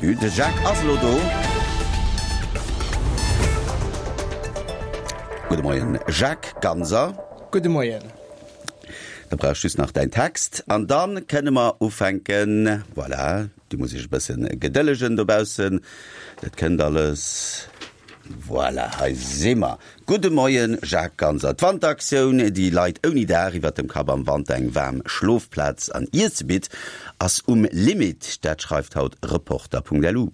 Début. De Jacques ass elo do. Gudde Moien Jacques Ganser. Gudde Moien. Da brauch ech just nach däin Text an dann kënne mer ufänken. Voilà, du muss iech e bëssen gedëllegen dobaussen, dat kënnt alles. Voilà, hei si mer. Gudde Moien Jacques Ganser. D'Wanteraktioun, déi Leit ouni Daach iwwert dem Kapp am Wanter eng waarm Schlofplaz an Iesse bitt, ass um Limit. Dat schreift haut Reporter.lu.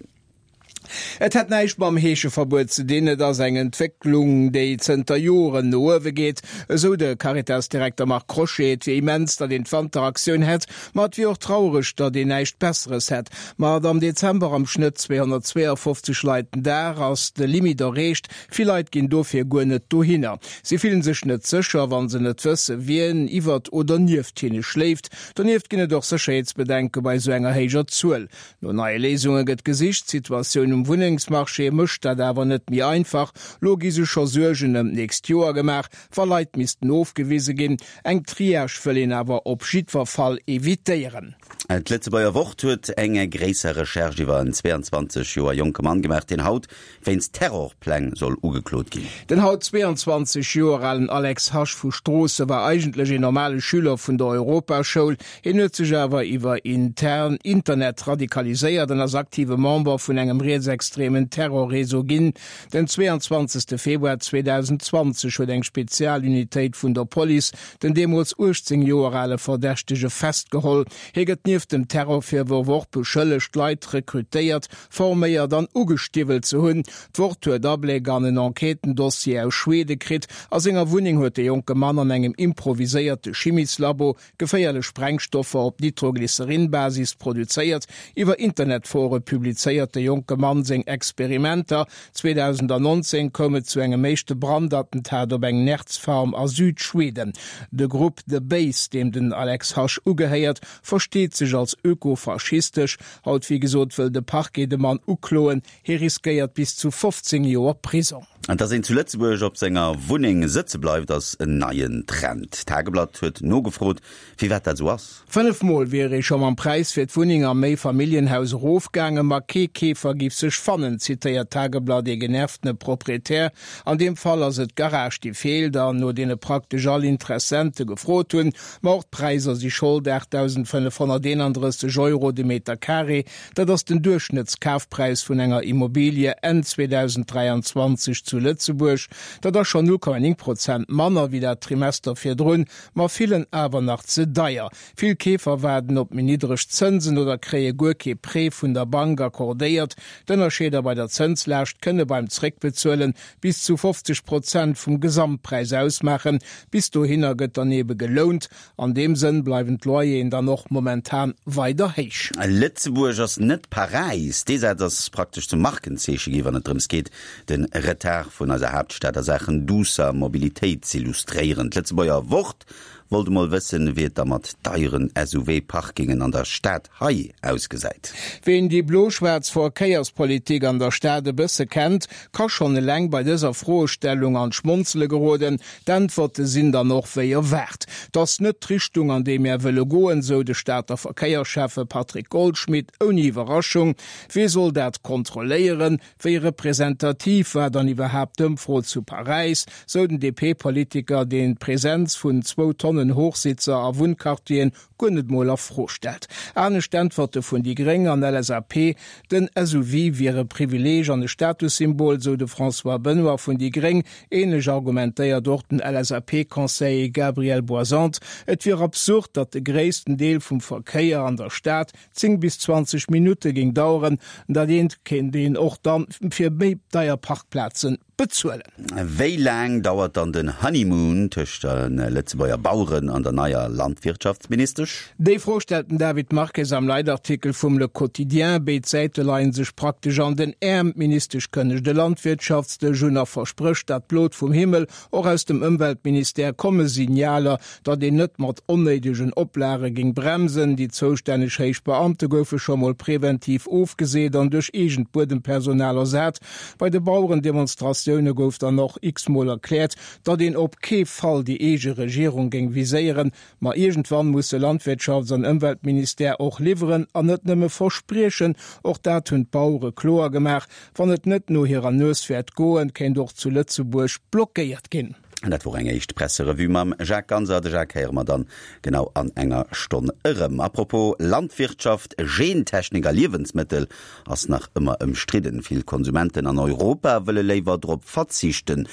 Et hätt näischt mam Heescheverbuet ze dinn, et ass eng Entwécklung, déi zënter Joren no uewe geet, esou de Caritas-Direkter Marc Crochet. Et wier immens, datt een d'Wanteraktioun hätt, ma et wier och traureg, datt een näischt Besseres hätt. Mat am Dezember am Schnëtt 252 Leit den Dag ass de Limit erreecht. Vill Leit ginn dofir guer net dohinner. Si fillen sech net sécher, wa se net wësse wien iwwert oder nieft hinne schléift. Donieft ginn et och Sécherheetsbedenke bei esou enger héijer Zuel. No neie Léisunge gëtt gesicht. D'Situatioun um Wunnengsmarché mécht dat awer net méi einfach. Lo gi sech scho Suergen ëm d'nächst Joer gemaach, wa Leit missten ofgewise ginn. Eng Triage wëll een awer op jiddwer Fall evitéieren. D'Lëtzebuerger Wort huet eng gréisser Recherche iwwer en 22 Joer jonke Mann gemaach, deen haut wéinst Terrorpläng soll ugeklot ginn. Den haut 22 Joer alen Alex Hasch vu Stroosse war eigentlech een normale Schüler vun der Europaschoul. Hien huet sech awer iwwer intern Internet radikaliséiert an ass aktive Member vun engem rietsextremen Terrorreseau ginn. Den 22 Februar 2020 huet eng Spezialunitéit vun der Police den deemools 18 Joer ale Verdächtege festgeholl. Hie gëtt nieft dem Terrorvirworf och beschëllegt, Leit rekrutéiert, forméiert an ugestiwwelt ze hunn. D'Wort huet Abléck an en Enquêtendossier aus Schwede kritt. A senger Wunneng huet de jonke Mann an engem improviséierte Chimieslabo geféierlech Sprengstoffer op Nitroglycerin-Basis produzéiert. Iwwer Internetfore publizéiert de jonke Mann seng Experimenter. 2019 koum et zu engem éischte Brandattentat op eng Nerzfarm a Südschweden. De Grupp The Base, deem den Alex Hasch ugehéiert, versteet sech als ökofaschistesch. Haut, wéi gesot, wëll de Parquet de Mann ukloen. Hie riskéiert bis zu 15 Joer Prisong. An dass een zu Lëtzebuerg op senger Wunneng sëtze bleift, ass en neien Trend. D'Tageblatt huet nogefrot, firwat dat esou ass. 5 Mol wier ee scho mam Präis fir d'Wunneng am Méifamilljenhaus erofgaangen, ma kee Keefer giff sech fannen, zitéiert d'Tageblatt ee genervtene Proprietär. An deem Fall ass et d'Garage, déi feelt an no deene praktesch all Interessente gefrot hunn. Ma och d'Präisser si Schold, 8.531 Euro de Meter Carré, dat ass den Duerchschnëttskafpräis vun enger Immobilie Enn 2023 zu Lëtzebuerg. Dat ass schonn 0,9 Prozent manner wéi dat Trimester virdrun, ma villen awer nach ze deier. Vill Keefer waarden op méi niddreg Zënsen oder kréie guer kee Prêt vun der Bank accordéiert. D'Ënnerscheeder bei der Zënslaascht kënne beim Zréckbezuelen bis zu 50 Prozent vum Gesamtpräis ausmaachen. Bis dohinner gëtt dann ebe gelount. An deem Sënn bleiwen d'Loyeren dann och momentan weider héich. Lëtzebuerg ass net Paräis. Dee Saz ass praktesch zum Markenzeeche gi wann et drëms geet, de Retard vun eiser Haaptstad a Saachen duusser Mobilitéit z'illustréieren. D'Lëtzebuerger Wort wollt emol wëssen, wéi et da mat deieren SUV-Parkingen an der Stad hei ausgesäit. Ween déi blo-schwaarz Verkéierspolitik an der Stad e bësse kennt, ka schonn eleng bei dëser Froestellung an d'Schmonzele geroden. D'Äntwerte sinn dann och wéi erwaart. 't ass net d'Richtung, an déi mär wëlle goen, sou de Stater Verkéierschäffe Patrick Goldschmidt ouni Iwwerraschung. Wee soll dat kontrolléieren? Wéi representativ war dann iwwerhaapt d'Ëmfro zu Paräis? Sou den DP-Politiker, deen d'Presenz vun zwou Tonnen Hochsitzer a Wunnquartieren guer net mol a Fro stellt. Anescht Äntwerte vun déi Gréng an LSAP, Den SUV wier e Privileeg an e Statussymbol, sou de François Benoy vun déi Gréng. Ähnlech argumentéiert och den LSAP-Conseiller Gabriel Boisante. Et wier absurd, datt de gréissten Deel vum Verkéier an der Stad 10 bis 20 Minutte géing daueren. Dat eent kéint een och dann fir méi deier Parkplazen bezuelen. Wéi laang dauert dann den Honeymoon tëscht de Lëtzebuerger Baueren an der neier Landwirtschaftsministesch? Déi Fro stellt den David Marques am Leitartikel vum Le Quotidien. Béid Säite leien sech praktesch an den Äerm. D'Ministesch kënnegt e Landwirtschaftsdësch un a versprécht dat Blot vum Himmel. Och aus dem Ëmweltministère komme Signaler, datt een net mat onnéidegen Oplage géing bremsen. Déi zoustänneg héich Beamte goufe scho mol preventiv ofgeseet an duerch eegent Buedempersonal ersat. Bei de Bauerendemonstratioune. Manifestatioune gouf dann och x-mol erkläert, datt een op kee Fall déi eege Regierung géing viséieren. Ma iergendwann musse Landwirtschafts an Ëmweltministère och liwweren an net nëmme verspriechen. Och dat hunn d'Bauere kloer gemaach, Wann et net no hirer Nues wäert goen, kéint och zu Lëtzebuerg blockéiert ginn. An dat wor eng éischt Presserevue mam Jacques Ganser. De Jacques héiere mer dann genau an enger Stonn erëm. A propos Landwirtschaft, Gentechnik a Liewensmëttel ass nach ëmmer ëmstridden. Vill Konsumenten an Europa wëlle léiwer drop verzichten.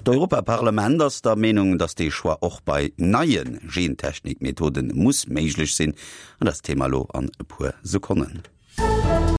D'Europaparlament ass der Meenung, datt dee Choix och bei neie Gentechnik-Methode muss méiglech sinn. An dat ass d'Thema elo an e puer Sekonnen.